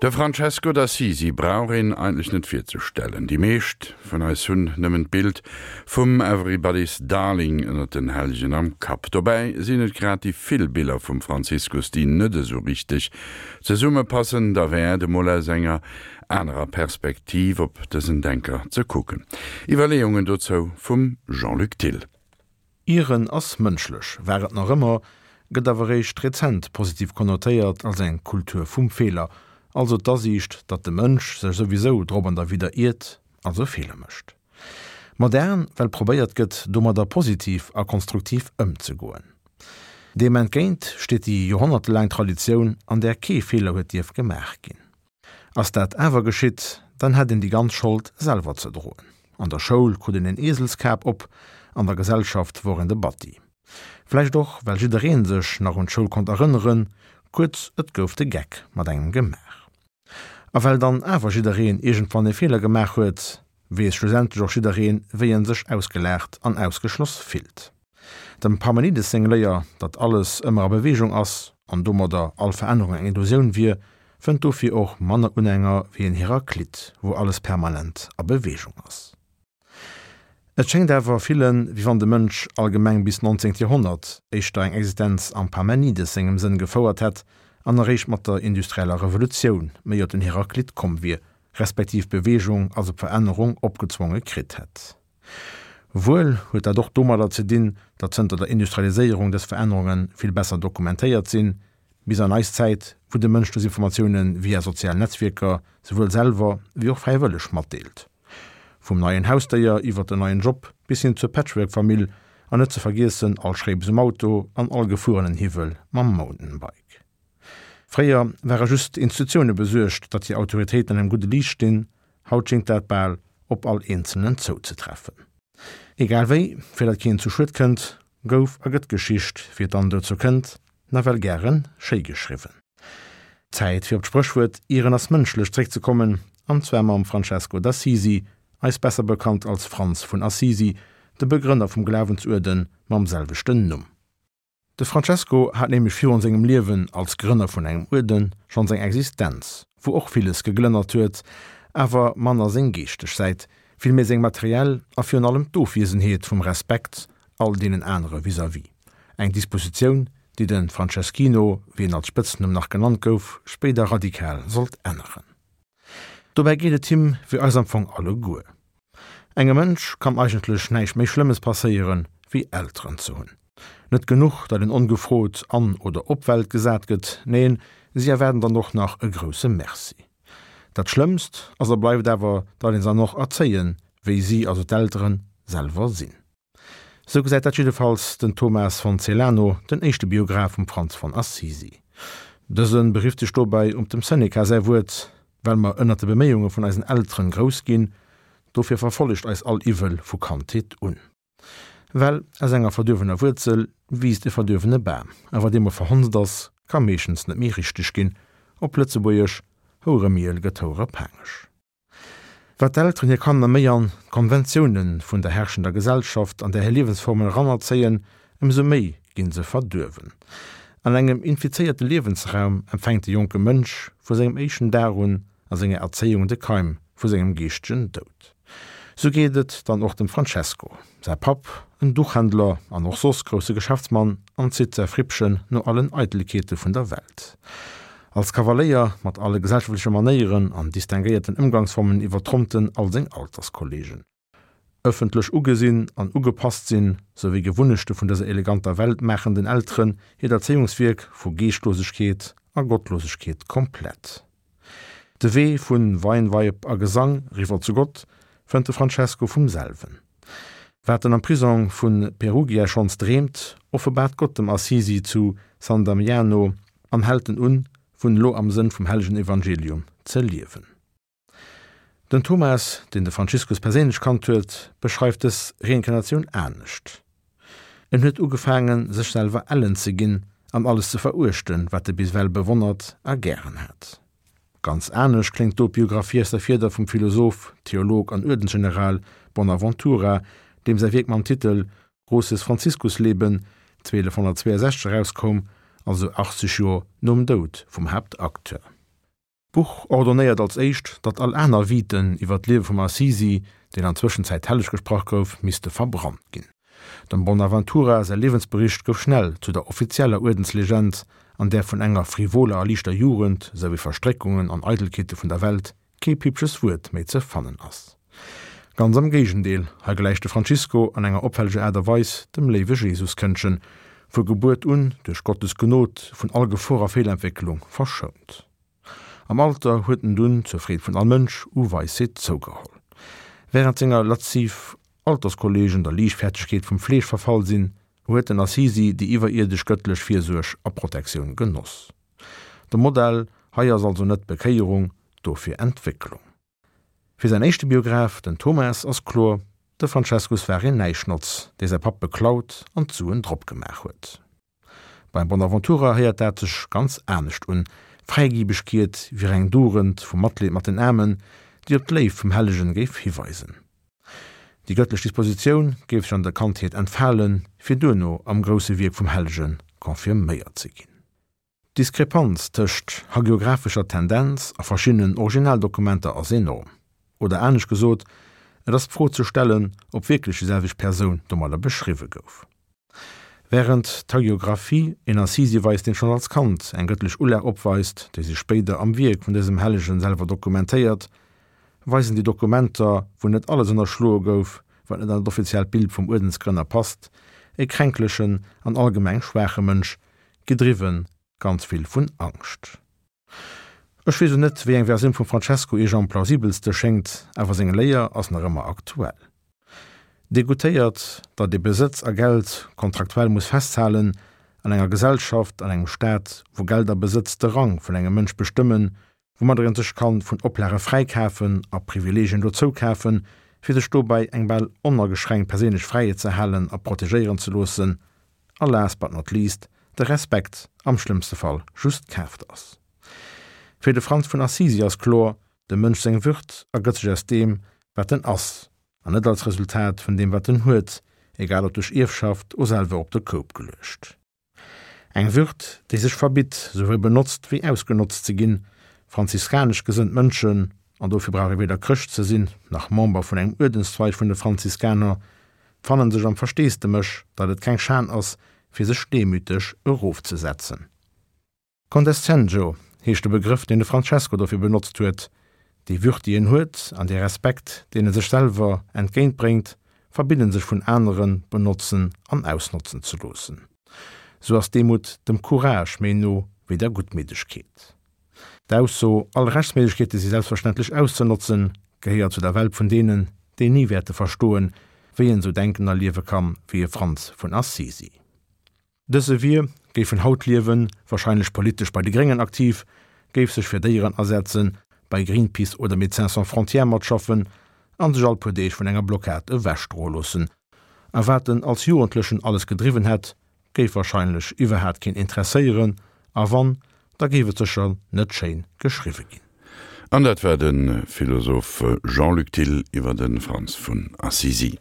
De Francesco d'Assisi brauch een eigentlech net virzestellen. Déi meescht vun eis hunn nëmmen d'Bild vum Everybody's Darling ënnert den Hellegen am Kapp. Dobäi sinn et grad déi vill Biller vum Franziskus, déi net esou richteg zesummepassen. Derwäert emol aus enger anerer Perspektiv op dësen Denker ze kucken. Iwwerleeungen dozou vum Jean-Luc Thill. Ieren ass mënschlech, war et nach ëmmer, gëtt awer réischt rezent positiv konnotéiert als eng Kultur vum Feeler, also d'Asiicht, datt de Mënsch sech souwisou drop an derwidder iert, also Feeler mécht. Modern, well probéiert gëtt, domadder positiv a konstruktiv ëmzegoen. Deem entgéint steet déi joerhonnertelaang Traditioun, an där kee Feeler huet dierf gemaach ginn. Ass dat awer geschitt, dann hätt een déi ganz Schold selwer ze droen. An der Schoul krut een een Eeselskap op, an der Gesellschaft wor een de Batti. Vläicht och, well jiddereen sech nach un d'Schoul konnt erënneren, kuerz, et gouf de Geck mat engem gemaach. A well dann awer jiddereen iergendwann e Feeler gemaach huet, weess schlussendlech och jiddereen, wéi en sech ausgelaacht an ausgeschloss fillt. Dem Parmenides seng Léier, datt alles ëmmer a Beweegung ass an domadder all Verännerung eng Illusioun wier, fënnt dofir och manner Unhänger wéi en Heraklit, wou alles permanent a Beweegung ass. Et schéngt awer villen, wéi wann de Mënsch allgemeng bis 19. Joerhonnert éischter eng Existenz am Parmenides sengem Sënn gefouert hätt an eréischt mat der industrieller Revolutioun méi op den Heraklit komm wier, respektiv d'Beweegung, also d'Verännerung, opgezwonge kritt hätt. Wuel huet dat och domadder ze dinn, datt zënter der Industrialiséierung dës Verännerunge vill besser dokumentéiert sinn, bis an eis Zäit, wou de Mënsch dës Informatioune via sozial Netzwierker souwuel selwer wéi och fräiwëlleg matdeelt. Vum neien Hausdéier iwwer den neien Job bis hin zur Patchwork-Famill an net ze vergiessen all Schréips um Auto an all gefuerenen Hiwwel mam Mountainbike. Fréier ware just d'Institutioune besuergt, datt hir Autoritéiten an engem gudde Liicht stinn, haut schéngt dat bal op all Eenzelnen zouzetreffen. Egal wéi, fir datt keen zu Schued kënnt, gouf a gëtt d'Geschicht, wéi et dann dozou kënnt, nawell gäre schéi geschriwwen. Zäit fir op d'Spréchwuert Ieren ass mënschlech zréckzekommen, an zwar mam Francesco d'Assisi, eis besser bekannt als Franz vun Assisi, de Begrënner vum Glawensuerde mam selwechten Numm. De Francesco hat nämlech virun sengem Liewen als Grënner vun engem Uerden schonns eng Existenz, wou och villes geglënnert huet, awer manner seng geeschteg Säit, vill méi seng materiell a virun allem d'Ofwiesenheet vum Respekt all deenen anere vis-à-vis. Eng Dispositioun, déi de Franceschino, wéi en als Spëtznumm nach genannt gouf, spéider radikal sollt änneren. Dobäi geet et him wéi eis am Fong alleguer. Engem Mënsch kann eigentlech näischt méi Schlëmmes passéieren, wéi Elteren ze hunn. Net genuch, datt een ongefrot an oder op d'Welt gesat gëtt, neen, si erwaarden dann och nach e grousse Merci. Dat Schlëmmst ass a bleift awer, datt een se dann och erzéien, wéi si, also d'Elteren, selwer sinn. Sou gesäit dat jiddefalls den Thomas von Celano, den éischte Biograph vum Franz von Assisi. Dëse berifft sech dobäi op dem Seneca säi Wuert, Well mer ënnert de Beméiunge vun eisen Elteren grouss ginn, dofir verfollegt eis all Iwwel vu Kandheet un. Well aus enger verduerwener Wuerzel wiisst e verduerwene Bam, a wat eemol verhonzt ass, ka meeschtens net méi richteg ginn, op Lëtzebuergesch, Houeremiel gëtt houerepaangeg. Wat d'Elteren hir Kanner méi an d'Konventioune vun der herrschender Gesellschaft an där hir Liewensformen eranerzéien, ëmsou méi ginn se verduerwen. An engem infizéierte Liewensraum empfänkt de jonke Mënsch vu sengem éischten Dag un a senger Erzéiung de Keim vu sengem geeschtegen Doud. Sou geet et dann och dem Francesco. Säi Papp, en Duchhändler an och soss grousse Geschäftsmann, anzitt säi Frippchen no allen Eitelkeete vun der Welt. Als Kavaléier mat alle gesellschaftleche Manéieren an distinguéierten Ëmgangsformen iwwertrompt en all seng Alterskollegen. Ëffentlech ugesinn an ugepasst sinn, souwéi Gewunnechte vun dëser eleganter Welt maachen den Elteren hiert Erzéiungswierk vu Geeschtlosegkeet a Gottlosegkeet komplett. De Wee vu Weinweib a Gesang riwwer zu Gott fënnt de Francesco vum selwen. Wat en am Prisong vu Perugia schonns dreemt, offenbaart Gott dem Assisi zu San Damiano an hält en un, vun elo am Sënn vum hellegen Evangelium ze liewen. Den Thomas, deen de Franziskus perséinlech kannt huet, beschreift dës Reinkarnatioun anescht, En huet ugefaangen, sech selwer ellen ze ginn an alles ze veruechten, wat e bis ewell bewonnert a gären hat. Ganz anescht kléngt do d'Biographie aus der Fieder vum Philosoph, Theolog an Uerdensgeneral Bonaventura, deem säi Wierk mam Titel Großes Franziskusleben 1262 erauskoum, also 80 Joer nom Doud vum Haaptacteur. D'Buch ordonnéiert als éischt, datt all aner Viten iwwer d'Liewe vum Assisi, deen an Zwëschenzäit helleg gesprach gouf, misste verbrannt ginn. Dem Bonaventura säi Liewensbericht gouf schnell zu der offizieller Uerdenslegend, an där vun enger frivoler a liichter Jugend, sou wéi Verstréckungen an Eidelkeete vun der Welt, kee pippches Wuert méi ze fannen ass. Ganz am Géigendeel, hei gläicht de Francisco an enger opfälleger Aart a Weis dem léiwe Jesuskëndchen, vu Gebuert un duerch Gottes Gnod vun all Gefor a Feelentwécklung verschount. Am Alter huet en dunn, zur Freed vun all Mënsch, u Weisheet zougeholl. Wärend senger lasziv Alterskollegen der Liichtfäertegkeet vum Fleesch verfall sinn, huet den Assisi déi iwwerierdesch gëttlech Virsuerg a Protektioun genoss. De Modell hei ass also net Bekéierung, dofir Entwécklung. Fir säin éischte Biograph, den Thomas, ass kloer, de Francescus war een Näischnotz, dee säi Papp beklaut an d'Suen drop gemaach huet. Beim Bonaventura héiert dat sech ganz anescht un, Fräigibegkeet wier eng Dugend vum Matleed mat den Aarmen, déi op d'Léift vum Hellegen géif hiweisen. Déi gëttlech Dispositioun géif sech an der Kandheet entfalen, fir duerno am grousse Wierk vum Hellege confirméiert ze ginn. D'Diskrepanz tëscht hagiographescher Tendenz a verschiddenen Originaldokumenter ass enorm. Oder anescht gesot, et ass d'Fro ze stellen, ob wierklech déi selwecht Persoun domadder beschriwwe gouf. Wärend d'Hagiographie een Assisi weist, deen schonn als Kand eng gëttlech Ulag opweist, déi sech spéider am Wierk vun dësem Hellegen selwer dokumentéiert, weisen déi Dokumenter, wou net alles ënnerschloe gouf, wat net an dat offiziellt Bild vum Uerdensgrënner passt, e kränklechen an allgemeng schwaache Mënsch, gedriwwen ganz vill vun Angscht. Ech weess o net, wéi eng Versioun vum Francesco iech am plausibelste schéngt, awer seng Léier ass nach ëmmer aktuell. Degoutéiert, datt ee Besëtz a Geld kontraktuell muss festhalen, an enger Gesellschaft, an engem Staat, wou Geld a Besëtz de Rang vun engem Mënsch bestëmmen, woumadder een sech kann vun Oplage fräikafen a Privileegien dozoukafen, fir sech dobäi eng bal onageschränkt perséinlech Fräiheet ze halen a protegéieren ze loossen, a last but not least, de Respekt am schlëmmste Fall just kaaft ass. Fir de Franz vun Assisi ass kloer, dem Mënsch seng Würd ergëtt sech aus deem, wat en ass, an net als Resultat vun deem, wat en huet, egal ob duerch Ierfschaft o selwer op de Koup geluecht. Eng Würd, déi sech verbitt, souwuel benotzt wéi ausgenotzt ze ginn. Franziskanesch gesënnt Mënschen, an dofir brauch ee weder Chrëscht ze sinn, nach Member vun engem Uerdenszweig vun de Franziskaner, fannen sech am Versteesdemech, datt et keng Schan ass, fir sech demüteg erofzesetzen. Condescendjo heescht de Begrëff, deen de Francesco dofir benotzt huet. Déi Würd, déi en huet, an dee Respekt, deen e sech selwer entgéint bréngt, verbidden sech vun anere benotzen an ausnotzen ze loossen. Sou ass d'Demut dem Courage méi no wéi der Guttmiddegkeet. D'Ausso, all Rechtsméiglechkeete si selbstverständlech auszenotzen, gehéiert zu der Welt vun deenen, déi ni wäerte verstoen, wéi een esou denken a liewe kann, wéi e Franz vun Assisi. Dëse wier, géif en haut liewen, warscheinlech politesch bei de Gréngen aktiv, géif sech fir Déieren asetzen, bei Greenpeace oder Médecins sans frontières matschaffen an sech all puer Deeg vun enger Blockad ewechdroe loossen. A wat en als Jugendlechen alles gedriwwen hätt, géif wahrscheinlech iwwerhaat keen interesséieren, a wann, da géif et sécher net schéin geschriwwe ginn. An dat war de Philosoph Jean-Luc Thill iwwer de Franz vun Assisi.